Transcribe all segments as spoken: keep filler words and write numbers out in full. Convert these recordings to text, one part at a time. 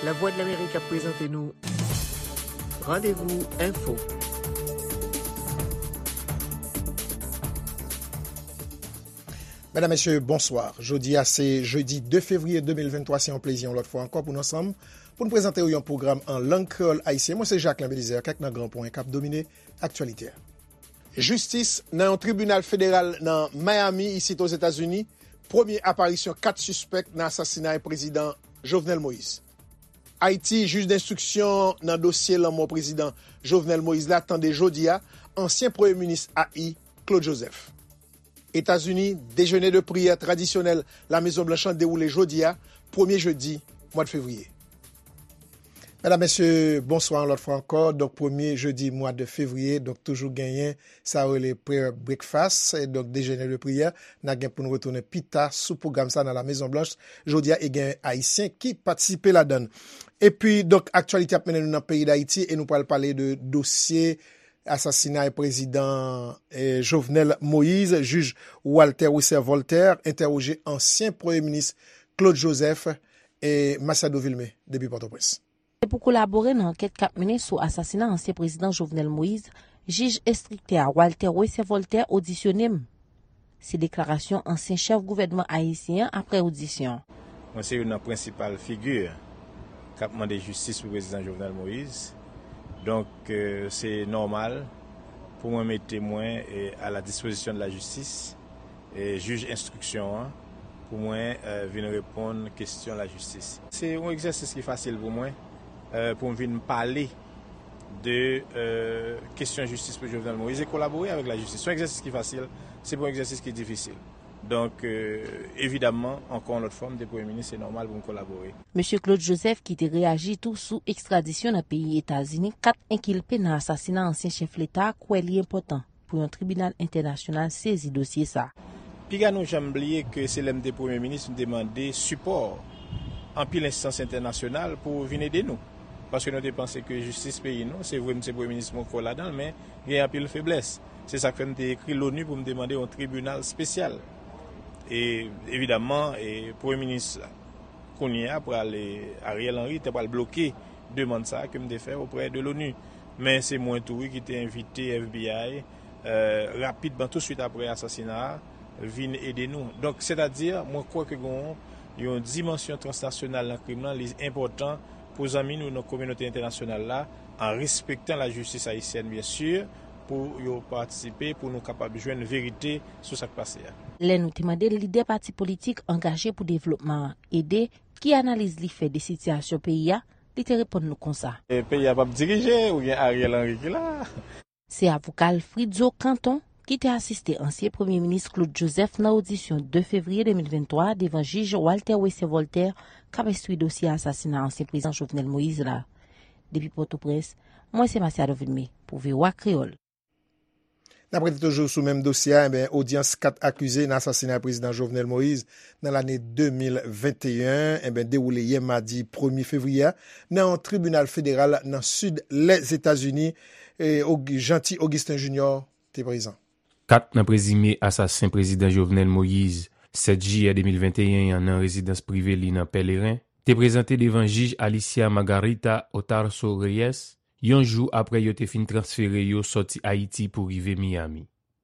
Lavwadlamerik ap prezante nou Randevou Enfo. Medam, mesye, bonswa. Jodi a se jedi de fevriye de mil venntwa, se yon plezi yon lòt fwa ankò pou n ansanm, pou n prezante w yon pwogram an lang kreyòl ayisyen. Mwen se Jacquelin Belizaire, kèk nan gran pwen k ap domine aktyalite a. Jistis nan yon tribinal federal nan Miami, isit Ozetazini, premye aparisyon kat sispèk nan asasinay prezidan Jovenel Moïse. Ayiti, jij denstriksyon nan dosye lanmò prezidan Jovenel Moïse la tande jodi a ansyen premye minis A I, Claude Joseph. Etazini, dejene de priyè tradisyonèl La Mezon Blanch lan dewoule jodi a, premye jedi mwa de fevriye. Medam, mesye, bonswa yon lòt fwa ankò. Donk, premye jedi mwa de fevriye, donk, toujou genyen sa yo rele prayer breakfast, e donk, dejene de priyè. N a gen pou n retounen pita sou pwogram sa nan La Mezon Blanch jodi a, e gen Ayisyen ki patisipe ladan l. Epi, donk, aktyalite ap mennen nou nan peyi Dayiti, e nou pral pale de dosye asasinay prezidan, eh, Jovenel Moïse. Jij Walter Wesser Voltaire entèwoje ansyen premye minis Claude Joseph e Masiado Vilmé depi Pòtoprens. Se pou kolabore nan ankèt k ap mennen sou asasina ansyen prezidan Jovenel Moïse, jij enstriktè a Walter Wesser Voltaire odisyone m. Se deklarasyon ansyen chèf gouvènman ayisyen an apre odisyon. Mwen se youn nan prensipal figi k ap mande jistis pou prezidan Jovenel Moïse. Donk, eh, se nòmal pou mwen mete mwen, eh, à la disposition de la justice, eh, jij enstriksyon an, pou mwen, eh, vin reponn kesyon lajistis. Se yon egzèsis ki fasil pou mwen, eh, pou m vin pale de, eh, kesyon jistis pou Jovenel Moïse e kolabore avèk lajistis. Se yon egzèsis ki fasil, se pa yon egzèsis ki difisil. Donk, eh, evidamman, ankò yon lòt fwa, m te premye minis, se nòmal pou m kolabore. Mesye Claude Joseph, ki te reyaji tou sou ekstradisyon nan peyi Etazini kat enkilpe nan asasina ansyen chèf leta, kwè li enpòtan pou yon tribinal entènasyonal sezi dosye sa. Piga nou janm bliye ke se lè m te premye minis, m te mande sipò anpil enstans entènasyonal pou vin ede nou. Paske nou te panse ke jistis peyi nou, se vre, m se premye minis, mwen kwè ladan l, men gen anpil feblès. Se sa k fè m te ekri Loni pou m te mande yon tribinal espesyal. E, evidamman, e, premye minis kounye a pral, e, Ariel Henry te pral bloke demann sa a ke m te fè oprè de Loni. Men se mwen tou, wi, ki te envite F B I, eh, rapidman, touswit apre asasina a, vin ede nou. Donk, sètadi, mwen kwè ke gen yon dimansyon transnasyonal nan krim lan, li enpòtan pou zanmi nou nan kominote entènasyonal la, an respektan lajistis ayisyèn, byen si, pou yo patisipe, pou nou kapab jwenn verite sou sa k pase a. Lè nou te mande lidè pati politik angaje pou devlopman an ede, ki analiz li fè de sitiyasyon peyi a, li te reponn nou konsa. E peyi a p ap dirije, ou gen Ariel Henry ki la. Se avoka Alfridzo Canton ki te asiste ansyen premye minis Claude Joseph nan odisyon de fevriye de mil venntwa devan jij Walter Wesser Voltaire k ap enstwi dosye asasina ansyen prezidan Jovenel Moïse la. Depi Pòtoprens, mwen se Masiado Vilmé pou V O A Kreyòl. N ap rete toujou sou menm dosye a, enben, odyans kat akize nan asasina prezidan Jovenel Moïse nan lane de mil venteyen, enben, dewoule yè madi premye fevriye a nan yon tribinal federal nan sid Lèzetazini, e Og-, Jeanty Augustin Junior te prezan. Kat nan prezime asasen prezidan Jovenel Moïse, sèt jiyè de mil venteyen an nan rezidans prive li nan Pèleren, te prezante devan jij Alicia Margarita Otarso Reyes, yon jou apre yo te fin transfere yo sòti Ayiti pou rive Miami.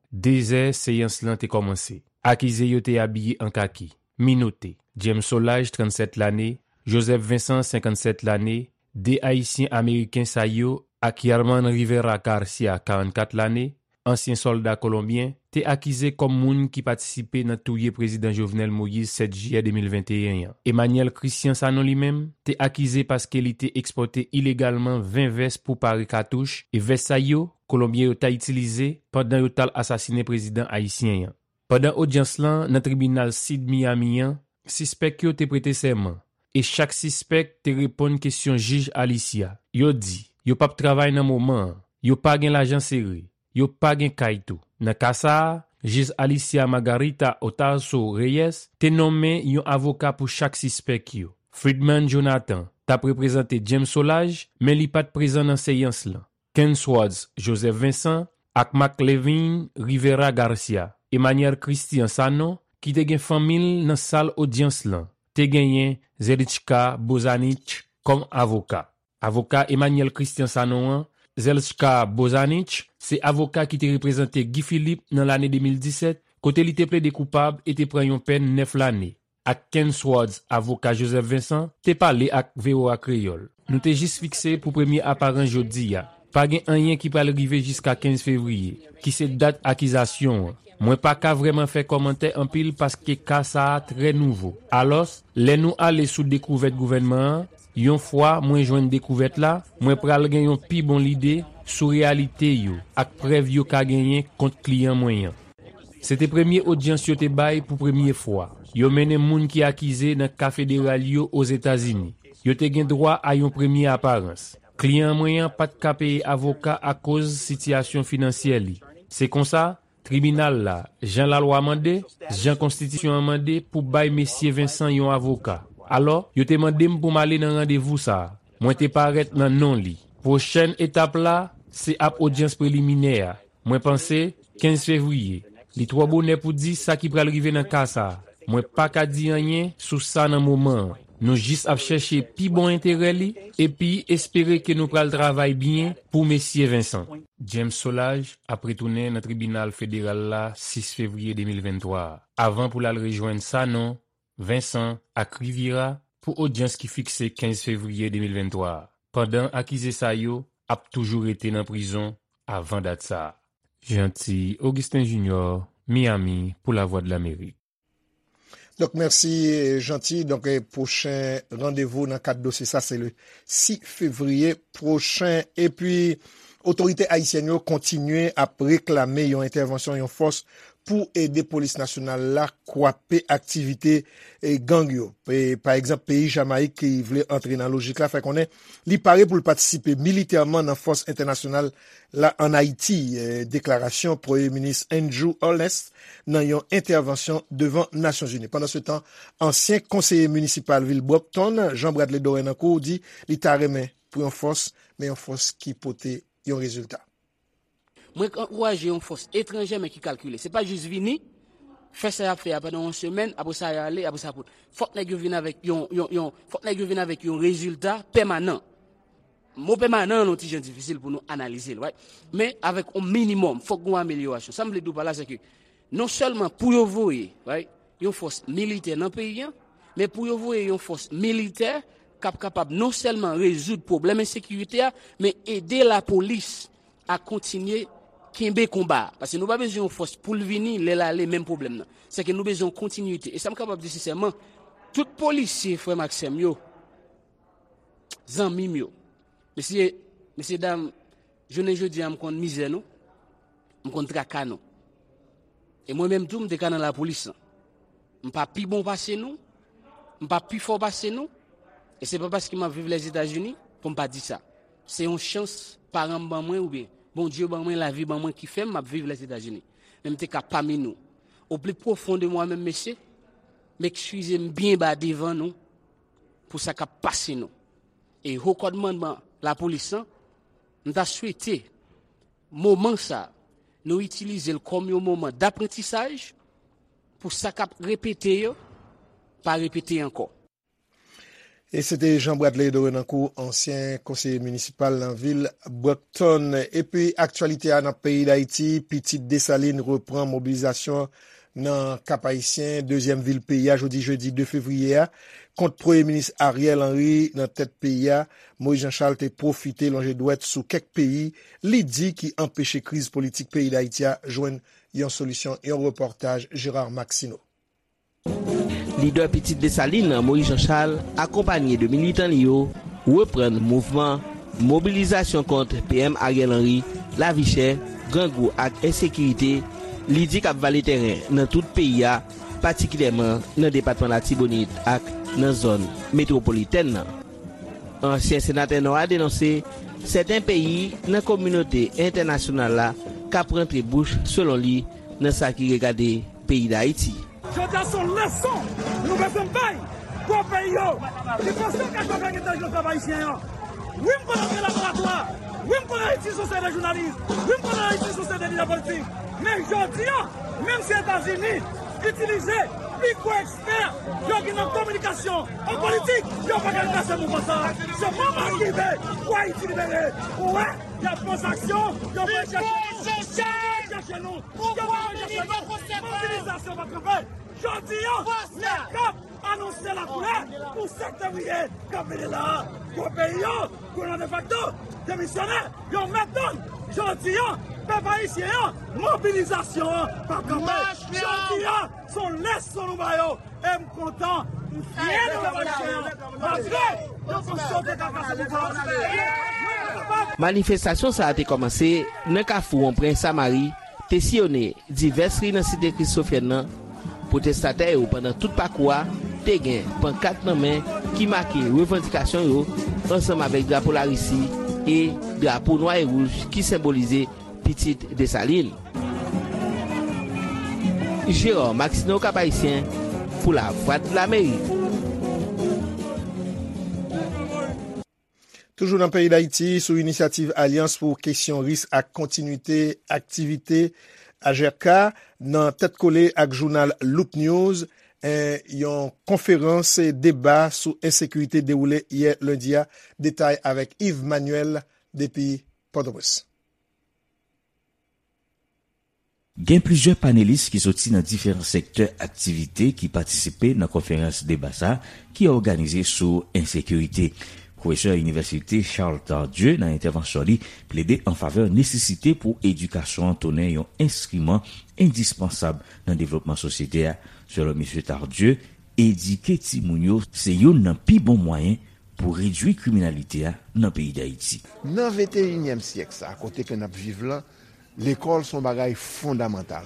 Dezè seyans lan te kòmanse. Akize yo te abiye an kaki, minote. James Solages, trannsèt lane, Joseph Vincent, senkannsèt lane, de Ayisyen Ameriken sa yo, ak Yerman Rivera Garcia, karannkat lane, ansyen sòlda kolonbyen, te akize kòm moun ki patisipe nan touye prezidan Jovenel Moïse sèt jiyè de mil venteyen an. Emmanuel Christian Sanon, li menm, te akize paske li te ekspòte ilegalman ven vès pou pare katouch, e vès sa yo, kolonbyen yo ta itilize pandan yo t al asasinen prezidan ayisyen an. Pandan odyans lan nan tribinal sid Miami an, sispèk yo te prete sèman, e chak sispèk te reponn kesyon jij Alicia. Yo di yo p ap travay nan moman an, yo pa gen lajan sere, yo pa gen kay tou. Nan ka sa a, jij Alicia Margarita Otarso Reyes te nonmen yon avoka pou chak sispèk yo. Friedman Jonathan t ap reprezante James Solages, men li pa t prezan nan seyans lan. Ken Swartz Joseph Vincent ak Marc Levine Rivera Garcia. Emmanuel Christian Sanon, ki te gen fanmi l nan sal odyans lan, te genyen Zelichka Bozanich kòm avoka. Avoka Emmanuel Christian Sanon an, Zelchka Bozanich, se avoka ki te reprezante Guy Philippe nan lane de mil disèt, kote li te plede koupab e te pran yon pèn nèf lane. Ak Ken Swartz, avoka Joseph Vincent, te pale ak V O A Kreyòl. Nou te jis fikse pou premye aparans jodi a. Pa gen anyen ki pral rive jiska kenz fevriye, ki se dat akizasyon an. Mwen pa ka vrèman fè kòmantè anpil paske ka sa a trè nouvo. Alòs, lè nou ale sou dekouvèt gouvènman an, yon fwa mwen jwenn dekouvèt la, mwen pral gen yon pi bon lide sou reyalite yo ak prèv yo ka genyen kont kliyan mwen an. Se te premye odyans yo te bay pou premye fwa. Yo mennen moun ki akize nan ka federal yo Ozetazini. Yo te gen dwa a yon premye aparans. Kliyan mwen an pa t ka peye avoka akoz sitiyasyon finansyè li. Se konsa, tribinal la, jan lalwa mande, jan konstitisyon an mande pou bay mesye Vincent yon avoka. Alò, yo te mande m pou m ale nan randevou sa a. Mwen te parèt nan non li. Pwochèn etap la, se ap odyans preliminè a. Mwen panse, kenz fevriye. Li twò bonè pou di sa ki pral rive nan ka sa a. Mwen pa ka di anyen sou sa nan moman an. Nou jis ap chèche pi bon enterè li, epi espere ke nou pral travay byen pou mesye Vincent. James Solages ap retounen nan tribinal federal la sis fevriye de mil venntwa a, avan pou l al rejwenn Sanon, Vincent ak Riviera pou odyans ki fikse kenz fevriye de mil venntwa a, pandan akize sa yo ap toujou rete nan prizon avan dat sa a. Jeanty Augustin Junior, Miami, pou Lavwadlamerik. Donk, mèsi, Jeanty. Donk, eh, pwochen randevou nan kad dosye sa, se le sis fevriye pwochen. Epi, otorite ayisyèn yo kontinye ap reklame yon entèvansyon yon fòs pou ede polis nasyonal la kwape aktivite, eh, gang yo. E, pa egzanp, peyi Jamayik ki vle antre nan lojik la fè konnen li pare pou l patisipe militèman nan fòs entènasyonal la ann Ayiti, eh, deklarasyon Premye Minis Andrew Holness nan yon entèvansyon devan Nasyonzini. Pandansetan, ansyen konseye minisipal vil Brockton, Jean Bradley Dorenancourt, di li ta renmen pou yon fòs, men yon fòs ki pote yon rezilta. Mwen ankouraje yon fòs etranjè men ki kalkile. Se pa jis vini, fè sa y ap fè a pandan yon semèn, apre sa y ale, apre sa pou. Fòk nèg yo vin avèk yon, yon, yon, fòk nèg yo vin avèk yon rezilta pèmanan. Mo pèmanan an yon ti jan difisil pou nou analize l, right? Men avèk yon minimòm, fòk gen yon amelyorasyon. Sa m vle di w pa la, se ke non sèlman pou yo voye, right, yon fòs militè nan peyi a, men pou yo voye yon fòs militè k ap kapab non sèlman rezoud pwoblèm ensekirite a, men ede lapolis a kontinye kenbe konba a. Paske nou pa bezwen yon fòs pou l vini, lè l ale, menm pwoblèm nan. Sèke nou bezwen yon kontinwite. E sa m kapab di sensèman, tout polisye, frè m ak sè m yo, zanmi m yo, mesye, mesye dam, jounen jodi a, m konn mizè nou, m konn traka nou. E mwen menm tou, m te ka nan lapolis lan. M pa pi bon pase nou, m pa pi fò pase nou, e se pa paske m ap viv Lèzetazini pou m pa di sa. Se yon chans paran m ban mwen oubyen Bondye ban mwen, lavi ban mwen ki fè m ap viv Lèzetazini. Men m te ka pami nou. Au plus profond de moi-même, mesye, m ekskize m byen ba devan nou pou sa k ap pase nou. E ho kòdmannman lapolis lan, m ta swete moman sa a, nou itilize l kòm yon moman daprantisaj pou sa k ap repete yo pa repete ankò. E se te Jean Bradley Dorenancourt, ansyen konseye minisipal nan vil Brockton. Epi aktyalite a nan peyi Dayiti, Pitit Desalin repran mobilizasyon nan Kap Ayisyen, dezyèm vil peyi a, jodi jedi de fevriye a, kont Premye Minis Ariel Henry nan tèt peyi a. Moïse Jean Charles te pwofite lonje dwèt sou kèk peyi li di ki anpeche kriz politik peyi Dayiti a jwenn yon solisyon, yon repòtaj Gérard Maxineau. Lidè Pitit Desalin, Moïse Jean Charles, akonpanye de militan li yo, reprann mouvman mobilizasyon kont P M Ariel Henry, lavi chè, grangou ak ensekirite, li di k ap vale tèren nan tout peyi a, patikilyèman nan depatman Latibonit ak nan zòn metwopolitèn nan. Ansyen senatè Nò a denonse sèten peyi nan kominote entènasyonal la k ap rantre bouch, selon li, nan sa ki regade peyi Dayiti. Jodi a se yon leson nou bezwen bay gwo peyi yo ki panse yo ka jwe avèk entèlijans pèp ayisyen an. Wi, m konn antre laboratwa. Wi, m konn Ayiti se yon seri de jounalis. Wi, m konn Ayiti se yon seri de lidè politik. Men jodi a, menm si Etazini itilize Pi gwo ekspè yo gen nan kominikasyon, an politik, yo pa ka kase mouvman sa. Se moman ki rive pou Ayiti libere. Ou wè, y ap poze aksyon, yo pral chèche nou. Yo pral chèche nou. Yo pral chèche nou. Mobilizasyon pa kanpe. Jodi a, NECAP anonse lakoulè pou sèt fevriye k ap vini la a. Gwo peyi yo, gouvènman defakto, demisyonè, yo mèt tann. Jodi a, pèp ayisyen an, mobilizasyon an pa kanpe. Jodi a, se yon leson nou ba yo. E m kontan, m fyè de pèp ayisyen an. Malgre yo panse yo te ka kase pouvwa a. Manifestasyon sa a te kòmanse nan kafou Wonpren Samari, te siyonnen divès ri nan site Kristofyèn nan. Pwotestatè yo pandan tout pakou a te gen pankat nan men ki make revandikasyon yo ansanm avèk drapo Larisi e drapo nwa e wouj ki senbolize pitit Desalin. Gérard Maxineau, Cap-Haïtien, pou Lavwadlamerik. Toujou nan peyi Dayiti, sou inisyativ Alyans pou Kesyon Risk ak Kontinwite Aktivite, A G R K, nan tèt kole ak jounal Loop News, en, yon konferans deba sou ensekirite dewoule yè lendi a. Detay avèk Yves Manuel depi Pòtoprens. Gen plizyè panelis ki soti nan diferan sektè aktivite ki patisipe nan konferans deba sa a ki òganize sou ensekirite. Pwofesè inivèsite Charles Tardieu, nan entèvansyon li, plede an favè nesesite pou edikasyon an tounen yon enstriman endispansab nan devlopman sosyete a. Selon mesye Tardieu, edike timoun yo se youn nan pi bon mwayen pou redui kriminalite a nan peyi Dayiti. Nan venteyinyèm syèk sa a, kote ke n ap viv lan, lekòl se yon bagay fondamantal.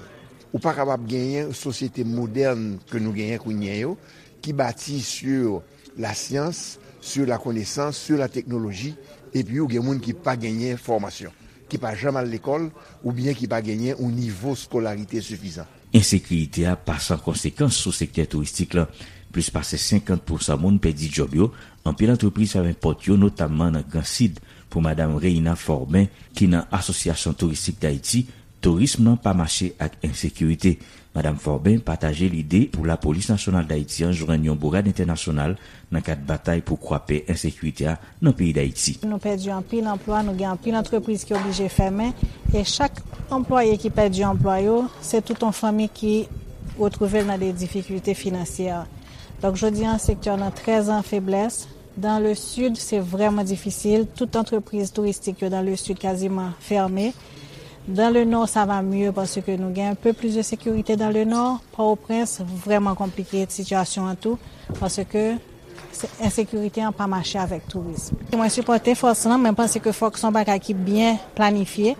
Ou pa kapab genyen sosyete modèn ke nou genyen kounye a yo, ki bati sur la science, sur la connaissance, sur la technologie, epi ou gen moun ki pa genyen fòmasyon, ki pa janm al lekòl, oubyen ki pa genyen yon nivo skolarite sifizan. Ensekirite a pa san konsekans sou sektè touristik lan. Plis pase senkant pousan moun pèdi djòb yo, anpil antrepriz fèmen pòt yo, notamman nan Gran Sid. Pou madanm Reina Forbin, ki nan Asosyasyon Touristik Dayiti, tourism nan pa mache ak ensekirite. Madanm Forbin pataje lide pou Lapolis Nasyonal Dayiti an jwenn yon bourad entènasyonal nan kad batay pou kwape ensekirite a nan peyi Dayiti. Nou pèdi anpil anplwa, nou gen anpil antrepriz ki oblije fèmen, e chak anplwaye ki pèdi anplwa yo, se tout yon fanmi ki retwouve l nan de difikilte finansyè. Donk, jodi a, sektè a nan trè an feblès. Dans le sud, se vrèman difisil. Tout antrepriz touristik yo dans le sud kaziman fèmen. Dans le nord, ça va mieux paske nou gen un peu plus de sécurité dans le nord. Pòtoprens, vrèman konplike sitiyasyon an tou, paske se, ensekirite an pa mache avèk tourism. Mwen sipòte fòs lan, men m panse ke fòk se yon bagay ki byen planifye,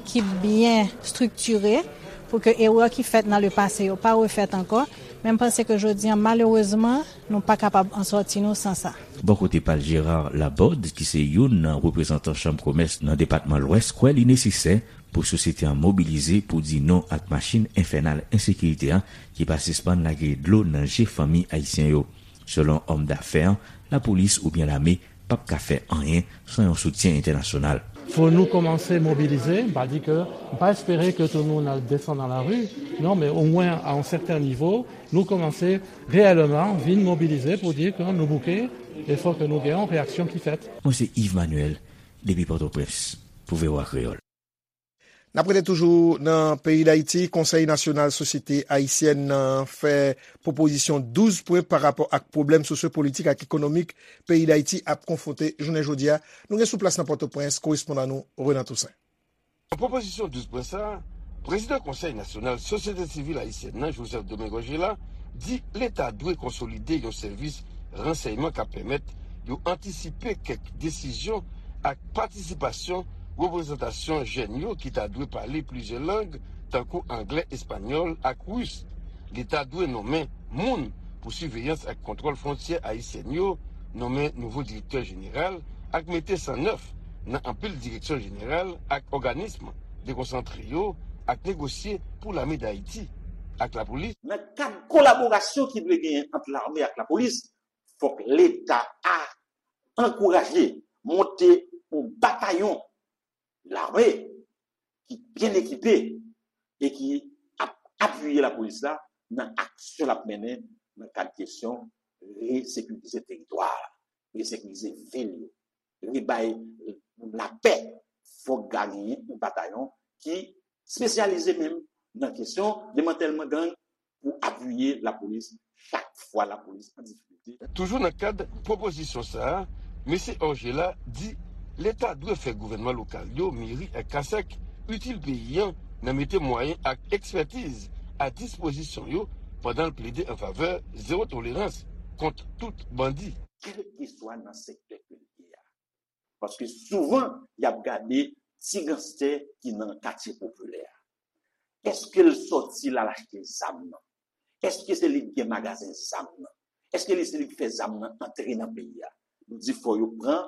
ki byen estrikire, pou ke erè ki fèt nan le pase yo pa refèt ankò. Men m panse ke jodi a, malerezman, nou pa kapab an sòti nou san sa. Bò kote pa l, Gérard Laborde, ki se youn nan reprezantan chanm komès nan depatman Lwès, kwè li nesesè pou sosyete an mobilize pou di non ak machin enfènal ensekirite a ki pa sispann lage dlo nan je fanmi ayisyen yo. Selon òm dafè an, lapolis oubyen lame p ap ka fè anyen san yon soutyen entènasyonal. Fò nou kòmanse mobilize, m pa di ke, m pa espere ke tout moun al desann nan lari, non, men omwen a yon sèten nivo, nou kòmanse reyèlman vin mobilize pou di ke nou bouke e fò ke nou gen yon reyaksyon ki fèt. Mwen se Yves Manuel, depi Pòtoprens, pou V O A Kreyòl. N ap rete toujou nan peyi Dayiti. Konsèy Nasyonal Sosyete Ayisyèn nan fè pwopozisyon douz pwen pa rapò ak pwoblèm sosyopolitik ak ekonomik peyi Dayiti ap konfwonte jounen jodi a. Nou gen sou plas nan Pòtoprens, korespondan nou, Renan Toussaint. Nan pwopozisyon douz pwen sa a, prezidan Konsèy Nasyonal Sosyete Sivil Ayisyèn nan, Joseph Domingue Orgella, di Leta dwe konsolide yon sèvis ransèyman k ap pèmèt yo antisipe kèk desizyon ak patisipasyon reprezantasyon jèn yo ki ta dwe pale plizyè lang, tankou anglè, espanyòl ak ris. Leta dwe nonmen moun pou siveyans ak kontwòl fwontyè ayisyèn yo, nonmen nouvo direktè jeneral ak mete san nèf nan anpil direksyon jeneral ak òganism dekonsantre yo ak negosye pou Lame Dayiti ak lapolis. Nan kad kolaborasyon ki dwe genyen ant lame ak lapolis, fòk Leta a ankouraje monte yon batayon lame ki byen ekipe e ki ap apiye lapolis la nan aksyon l ap mennen nan kad kesyon resekirize teritwa a, resekirize vil yo, rebay moun lapè. Fòk genyen yon batayon ki espesyalize menm nan kesyon demantèlman gang pou apiye lapolis chak fwa lapolis an difikilte. Toujou nan kad pwopozisyon sa a, mesye Orgella di Leta dwe fè gouvènman lokal yo, meri ak kasèk, itil peyi a nan mete mwayen ak ekspètiz a dispozisyon yo pandan l plede an favè zewo tolerans kont tout bandi. Kèlkeswa nan sektè ke l ye a. Paske souvan, y ap gade ti ganstè ki nan katye popilè a. Èske l sòti l al achte zam nan? Èske se li k gen magazen zam nan? Èske li se li k fè zam nan antre nan peyi a? Nou di fò yo pran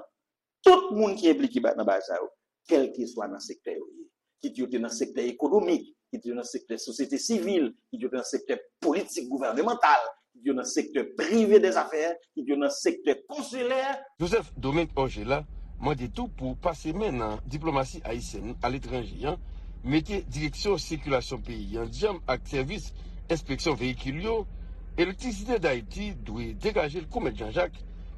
tout moun ki enplike ba- nan bagay sa yo, kèlkeswa nan sektè yo ye. Kit yo te nan sektè ekonomik, kit yo nan sektè sosyete sivil, kit yo te nan sektè politik gouvènemantal, kit yo nan sektè prive dèzafè, kit yo nan sektè konsilè. Joseph Domingue Orgella mande tou pou pase men nan diplomasi ayisyèn aletranje an, mete direksyon sikilasyon peyi an djanm ak sèvis enspeksyon veyikil yo, Elektrisite Dayiti dwe degaje l kou mèt Janjak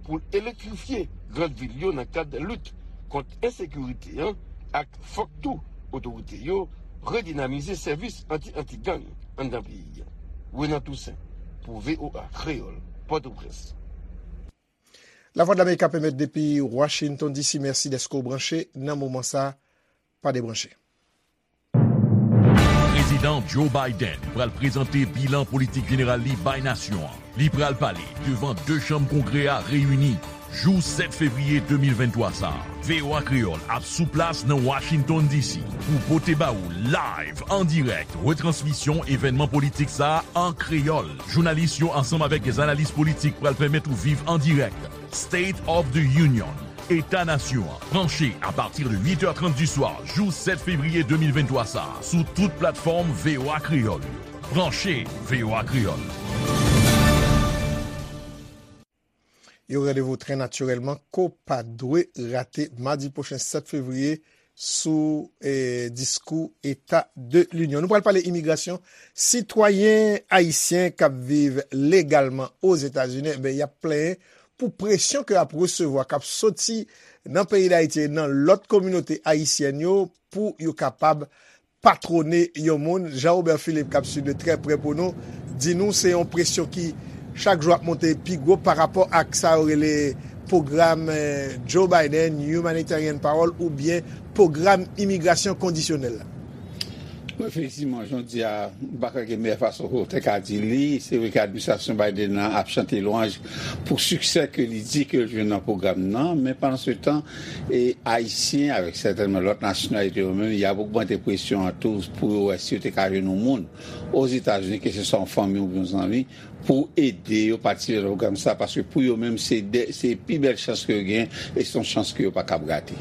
pou l elektrifye grann vil yo nan kad lit kont ensekirite an ak fòk tou otorite yo redinamize sèvis anti-anti-gang anndan peyi a. Renan Toussaint pou V O A Kreyòl, Pòtoprens. Lavwadlamerik ap emèt depi Washington D C. Mèsi dèske w branche nan moman sa a. Pa debranche. Prezidan Joe Biden pral prezante bilan politik jeneral li bay nasyon an. Li pral pale devan de chanm Kongrè a reyini jou sèt fevriye de mil venntwa sa a. V O A Kreyòl ap sou plas nan Washington D C pou pote ba ou live, an dirèk, retransmisyon evènman politik sa a an kreyòl. Jounalis yo ansanm avèk dè analis politik pral pèmèt ou viv an dirèk State of the Union, Eta Nasyon an, branche apati de uit è trant di swa jou sèt fevriye de mil venntwa sa a, sou tout platfòm V O A Kreyòl yo. Branche V O A Kreyòl. Yon randevou trè natirèlman ke w pa dwe rate madi pwochen sèt fevriye sou, eh, diskou Eta de Linyon. Nou pral pale imigrasyon. Sitwayen ayisyen k ap viv legalman Ozetazini, enben, y ap plenyen pou presyon ke y ap resevwa, k ap soti nan peyi Dayiti e nan lòt kominote ayisyèn yo pou yo kapab patwone yon moun. Jean Robert Philippe, k ap swiv de trè prè pou nou, di nou se yon presyon ki chak jou ap monte pi gwo pa rapò ak sa yo rele pwogram, eh, Joe Biden, Humanitarian Parole, oubyen pwogram imigrasyon kondisyonèl la. Wi, efektivman, jan w di a, m pa kwè gen meyè fason pou w te ka di li. Se vre ke administrasyon Biden nan ap chante lwanj pou siksè ke li di ke l jwenn nan pwogram nan, men pandan se tan, e Ayisyen, avèk sètènman lòt nasyonalite yo menm, y ap ogmante presyon an tou pou yo wè si yo te ka jwenn yon moun Ozetazini, keseswa yon fanmi oubyen yon zanmi, pou ede yo patisipe nan pwogram sa, paske pou yo menm, se de, se pi bèl chans ke yo gen, e se yon chans ke yo pa kab rate.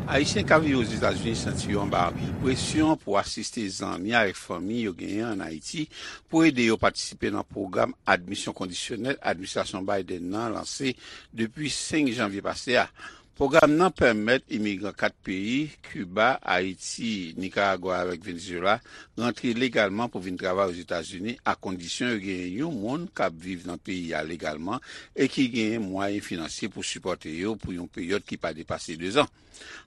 Ayisyen k ap viv Ozetazini santi yo anba anpil presyon pou asiste zanmi avèk fanmi yo genyen ann Ayiti pou ede yo patisipe nan pwogram admisyon kondisyonèl administrasyon Biden nan lanse depi senk janvye pase a. Pwogram nan pèmèt imigran kat peyi, Kiba, Ayiti, Nikaragwa avèk Venezuela, rantre legalman pou vin travay Ozetazini, a kondisyon yo genyen yon moun k ap viv nan peyi a legalman e ki genyen mwayen finansye pou sipòte yo pou yon peryòd ki pa depase dezan.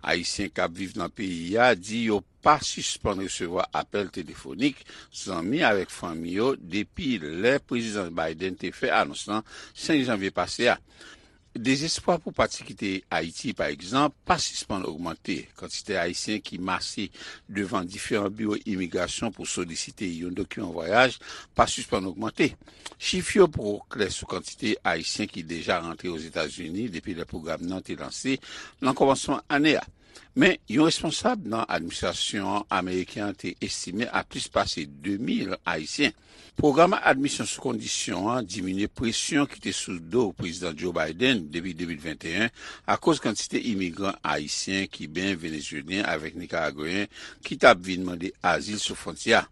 Ayisyen k ap viv nan peyi a di yo pa sispann resevwa apèl telefonik zanmi avèk fanmi yo depi lè Prezidan Biden te fè anons lan senk janvye pase a. Dezespwa pou pati kite Ayiti, pa egzanp, pa sispann ogmante. Kantite Ayisyen ki mase devan diferan biwo imigrasyon pou solisite yon dokiman vwayaj pa sispann ogmante. Chif yo poko klè sou kantite Ayisyen ki deja rantre Ozetazini depi lè pwogram nan te lanse nan kòmansman ane a. Men, yon responsab nan administrasyon ameriken an te estime a plis pase de mil Ayisyen. Pwogram admisyon sou kondisyon an diminye presyon ki te sou do Prezidan Joe Biden depi de mil venteyen akoz kantite imigran ayisyen, kiben, venezuelyen avèk nikaragweyen ki t ap vin mande azil sou fwontyè a.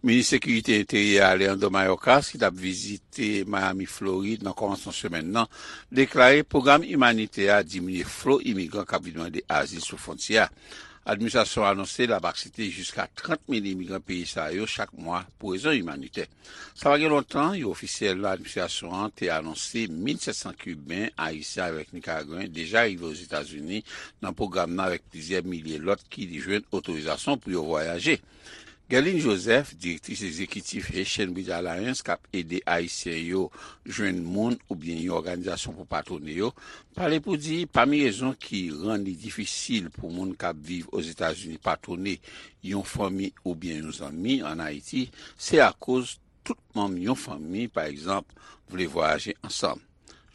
Minis Sekirite Enteryè Alejandro Mayorkas, ki t ap vizite Miami, Florid, nan kòmansman semèn nan, deklare pwogram imanitè a diminye flo imigran k ap vin mande azil sou fwontyè a. Administrasyon an anonse l ap aksepte jiska trant mil imigran peyi sa yo chak mwa pou rezon imanitè. Sa pa gen lontan, yon ofisyèl nan administrasyon an te anonse mil sèt san Kiben, Ayisyen avèk Nikaragwen deja rive Ozetazini nan pwogram nan, avèk plizyè milye lòt ki jwenn otorizasyon pou yo vwayaje. Guerline Joseph, direktris egzekitif Haitian Bridge Alliance, k ap ede Ayisyen yo jwenn moun oubyen yon òganizasyon pou patwone yo, pale pou di pami rezon ki rann li difisil pou moun k ap viv Ozetazini patwone yon fanmi oubyen yon zanmi ann Ayiti, se akoz tout manm yon fanmi, pa egzanp, vle vwayaje ansanm.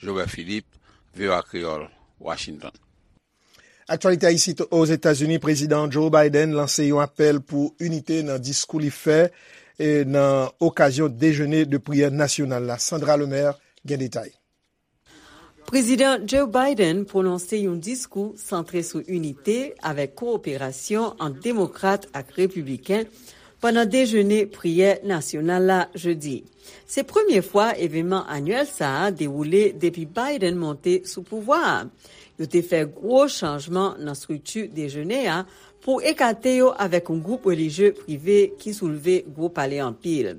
Jobert Philippe, V O A Kreyòl, Washington. Aktyalite isit Ozetazini, Prezidan Joe Biden lanse yon apèl pou inite nan diskou li fè, e, nan okazyon dejene de priyè nasyonal la. Sandra Lemaire gen detay. Prezidan Joe Biden pwononse yon diskou santre sou inite avèk kowoperasyon ant demokrat ak repibliken pandan dejene priyè nasyonal la jedi. Se premye fwa evènman anyèl sa a dewoule depi Biden monte sou pouvwa a. Yo te fè gwo chanjman nan estrikti dejene a pou ekate yo avèk yon gwoup relijye prive ki soulve gwo pale anpil.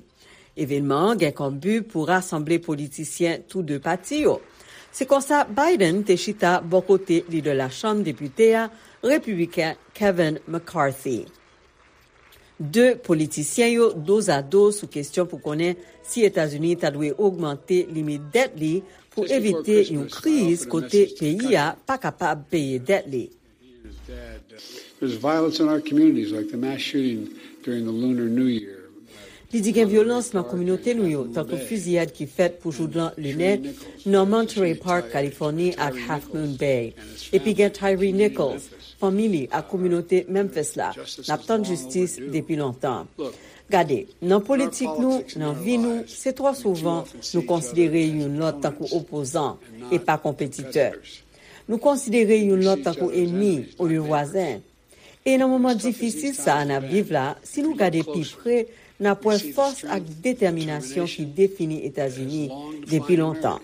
Evènman an gen kòm bi pou rasanble politisyen tou de pati yo. Se konsa Biden te chita bò kote lidè Lachanm Depite a, repibliken Kevin McCarthy. De politisyen yo dozado sou kesyon pou konnen si Etazini ta dwe ogmante limit dèt li pou evite yon kriz kote peyi a pa kapab peye dèt li. There's violence in our communities, like the mass shooting during the Lunar New Year. Li di gen vyolans nan kominote nou yo, tankou fiziyad ki fèt pou joudlan linè nan Monterey Park, Kalifòni, ak Half Moon Bay. Epi gen Tyre Nichols, fanmi li ak kominote Memphis la. N ap tann jistis depi lontan. Gade, nan politik nou, nan vi nou, se twò souvan nou konsidere youn lòt tankou opozan e pa konpetitè. Nou konsidere youn lòt tankou enmi olye vwazen. E nan moman difisil sa a n ap viv la, si nou gade pi pre, n ap wè fòs ak detèminasyon ki defini Etazini depi lontan.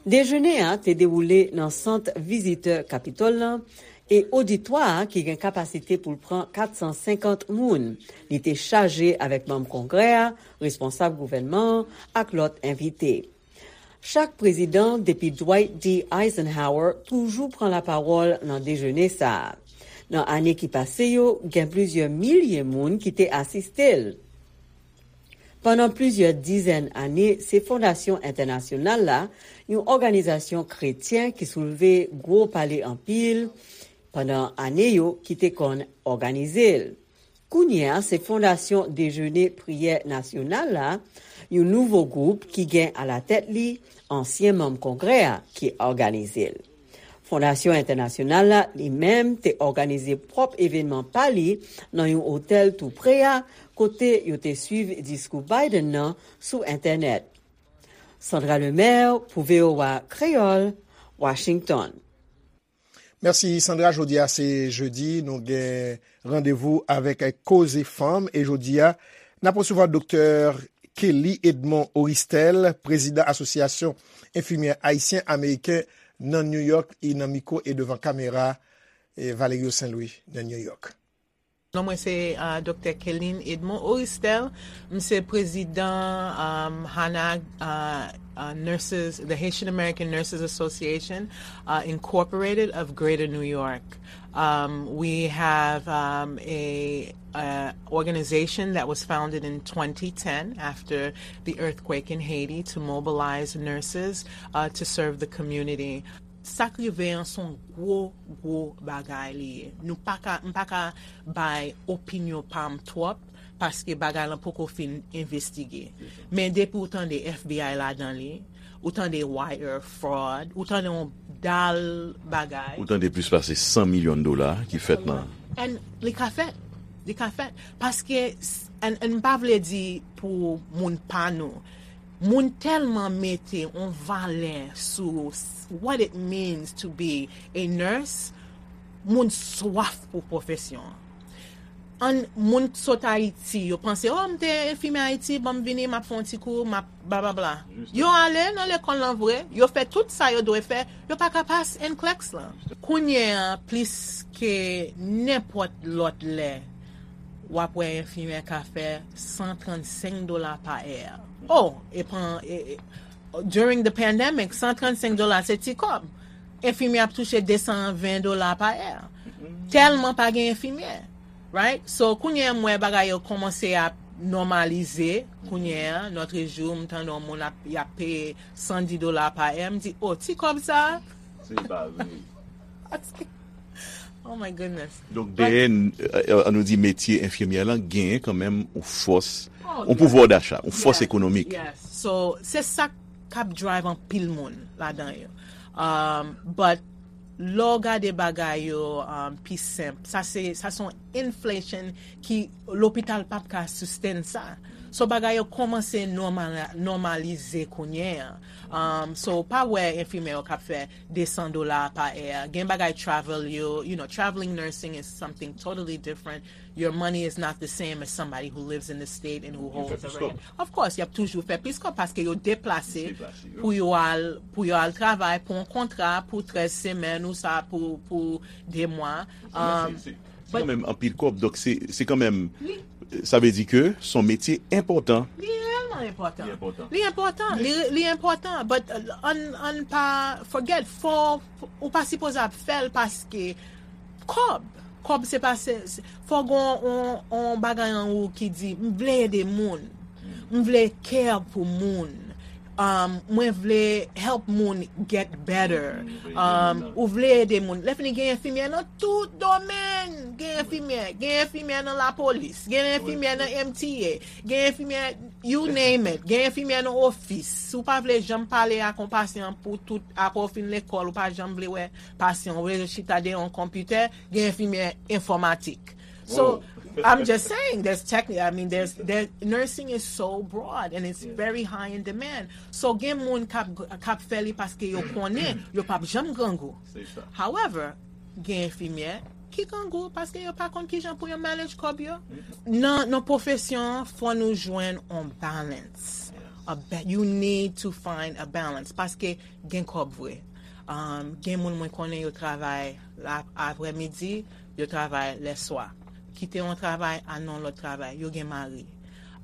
Dejene a te dewoule nan sant vizitè Kapitòl lan e oditwa a ki gen kapasite pou l pran kat san senkant moun. Li te chaje avèk manm Kongrè a, responsab gouvènman an ak lòt envite. Chak prezidan, depi Dwight D. Eisenhower, toujou pran lapawòl nan dejene sa a. Nan ane ki pase yo, gen plizyè milye moun ki te asiste l. Pandan plizyè dizèn ane, se Fondasyon Entènasyonal la, yon òganizasyon kretyen ki soulve gwo pale anpil pandan ane yo, ki te konn òganize l. Kounye a, se Fondasyon Dejene Priyè Nasyonal la, yon nouvo gwoup ki gen alatèt li ansyen manm Kongrè a ki òganize l. Fondasyon Entènasyonal la, li menm, te òganize pwòp evènman pa li nan yon otèl tou pre a, kote yo te swiv diskou Biden nan sou entènèt. Sandra Lemaire pou V O A Kreyòl, Washington. Mèsi, Sandra. Jodi a se jedi, nou gen randevou avèk Koze Fanm. E jodi a, n ap resevwa Doktè Kelly Edmond Oristel, prezidan Asosyasyon Enfimyè Ayisyen Ameriken nan New York, e nan mikwo e devan kamera, e Valerio Saint Louis nan New York. Non mwen se, uh, Doktè Kelly Edmond Oristel. M se prezidan, um, HANAG, uh, uh, Nurses, the Haitian American Nurses Association, uh, Incorporated of Greater New York. Um, we have, um, a, a organization that was founded in twenty ten after the earthquake in Haiti to mobilize nurses, uh, to serve the community. Sa k rive an se yon gwo, gwo bagay li ye. Nou pa ka, m pa ka bay opinyon pa m twòp, paske bagay lan poko fin envestige. Men depi w tande F B I ladan li, ou tande wire fraud, ou tande yon dal bagay. Ou tande plis pase san milyon dola ki fèt nan. And li ka fèt. Li ka fèt. Paske, s-, and, and m pa vle di pou moun pa nou. Moun tèlman mete yon valè sou s-, what it means to be a nurse, moun swaf pou pwofesyon an. An moun sot Ayiti, yo panse, "Oh, m te enfimyè Ayiti, ban m vini, m ap fè yon ti kou, m ap blablabla." Yo ale nan lekòl lan vre, yo fè tout sa yo dwe fè, yo pa ka pas N C L E X lan. Kounye a, plis ke nenpòt lòt lè, w ap wè enfimyè ka fè san trannsenk dola pa è. Oh, e pan, e, e, during the pandemic, san trannsenk dola se ti kòb. Enfimyè ap touche de san ven dola pa è. Tèlman pa gen enfimyè. Right? So, kounye a, m wè bagay yo kòmanse ap nòmalize. Kounye a, notre jour, m tande yon moun ap, y ap peye san di dola pa è. M di, "Oh, ti kòb sa a?" Se pa vre. Oh my goodness. Donk, dèyè, n- euh, an nou di metye enfimyè lan, genyen kanmenm yon fòs, yon pouvwa dacha, yon fòs ekonomik. Yes. So, se sa k ap drive anpil moun ladan yo. Um, but, lè w gade bagay yo, um, pi senp, sa se, sa se yon inflation ki lopital p ap ka sustain sa. So, bagay yo kòmanse nòmal, nòmalize kounye a. Um, so, pa wè enfimyè yo k ap fè de san dola pa è. Gen bagay travel yo, you know, traveling nursing is something totally different. Your money is not the same as somebody who lives in the state and who holds a rent. Of course, y ap toujou fè plis kòb paske yo deplase pou yo al, pou yo al travay, pou yon kontra, pou trèz semèn ou sa, pou, pou de mwa. Um, se kanmenm anpil kòb, donk se, se kanmenm, sa vle di ke se yon metye enpòtan. Li reyèlman enpòtan. Li enpòtan. Li enpòtan. Li, li enpòtan. But, uh, an, an pa forget, fò, ou pa sipoze ap fè l paske kòb. Kòb se pa, se, se, fò gen yon, yon bagay an ou ki di, "M vle ede moun. M vle care pou moun. Um, mwen vle help moun get better." Um, ou vle ede moun. Lè fini gen enfimyè nan tout domèn. Gen enfimyè. Gen enfimyè nan lapolis. Gen enfimyè nan M T A. Gen enfimyè, you name it. Gen enfimyè nan ofis. Si w pa vle janm pale ak yon pasyan pou tout, apre w fin lekòl, ou pa janm vle wè pasyan, ou vle chita dèyè yon konpitè, gen enfimyè enfòmatik. So, I'm just saying, there's techni-, I mean, there's, there, nursing is so broad and it's very high in demand. So, gen moun k ap, k ap fè li paske yo konnen yo p ap janm grangou. However, gen enfimyè ki grangou paske yo pa konn kijan pou yo manage kòb yo. Nan, nan pwofesyon an, fò nou jwenn on balance. A ba-, you need to find a balance paske gen kòb vre. Um, gen moun mwen konnen yo travay la, aprèmidi, yo travay lèswa. Kite yon travay, al nan yon lòt travay, yo gen mari.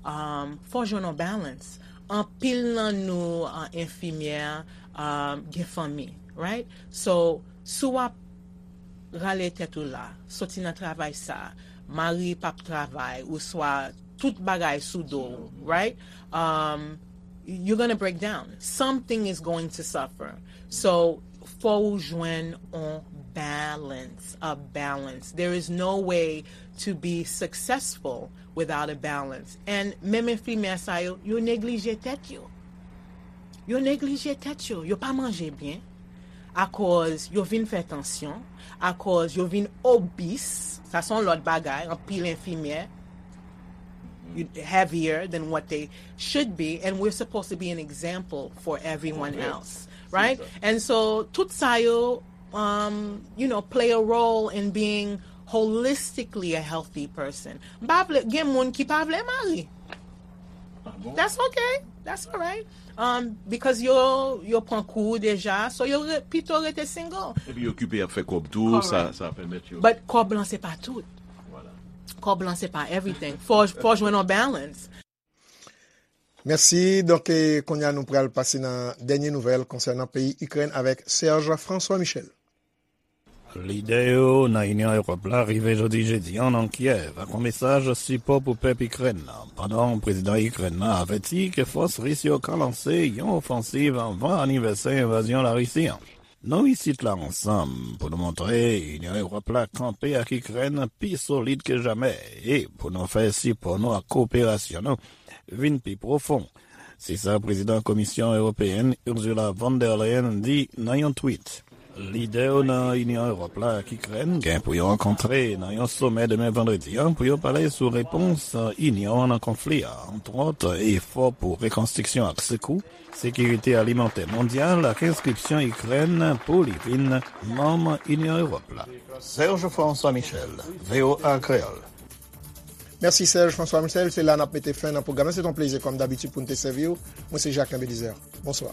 Um, fò jwenn yon balance. Anpil nan nou, uh, enfimyè, um, gen fanmi, right? So, si w ap rale tèt ou la, soti nan travay sa, mari p ap travay, oswa tout bagay sou do w, right? Um, you're gonna break down. Something is going to suffer. So, fò ou jwenn on balance, a balance. There is no way to be successful without a balance. And menm enfimyè sa yo, yo neglije tèt yo. Yo neglije tèt yo. Yo pa manje byen. Akoz yo vin fè tansyon. Akoz yo vin obese. Sa se yon lòt bagay. Anpil enfimyè, you- heavier than what they should be. And we're supposed to be an example for everyone else. Right? And so, tout sa yo, um, you know, play a role in being holistically a healthy person. M pa vle, gen moun ki pa vle mari. That's okay. That's all right. Um, because yo, yo pran kou deja, so yo re, pito rete single. Epi yo okipe ap fè kòb tou, sa, sa pèmèt yo. But kòb lan se pa tout. Kòb lan se pa everything. Fò, fò jwenn yon balance. Mèsi. Donk, e, kounye a nou pral pase nan dènye nouvèl konsènan peyi Ikrèn avèk Serge François Michel. Lidè yo nan Inyon Ewòp la rive jodi jedi a nan Kyèv ak yon mesaj sipò pou pèp Ikrèn nan, pandan prezidan Ikrèn nan avèti ke fòs ris yo ka lanse yon ofansiv anvan anivèsè envazyon Larisi an. Nou isit la ansanm pou nou montre Inyon Ewòp la kanpe ak Ikrèn pi solid ke jamè e pou nou fè sipò nou ak koperasyon nou vin pi pwofon. Se sa prezidan Komisyon Ewopeyèn Ursula von der Leyen di nan yon tweet. Lidè yo nan Inyon Ewòp la ak Ikrèn gen pou yo rankontre nan yon somè demen vandredi an pou yo pale sou repons Inyon an nan konfli a, antwòt efò pou rekonstriksyon ak sekou, sekirite alimantè mondyal ak enskripsyon Ikrèn pou li vin manm Inyon Ewòp la. Serge François Michel, V O A Kreyòl. Mèsi Serge François Michel, se la n ap mete fen nan pwogram nan. Se te yon plezi kòm dabitid pou n te sèvi w. Mwen se Jacquelin Belizaire. Bonswa.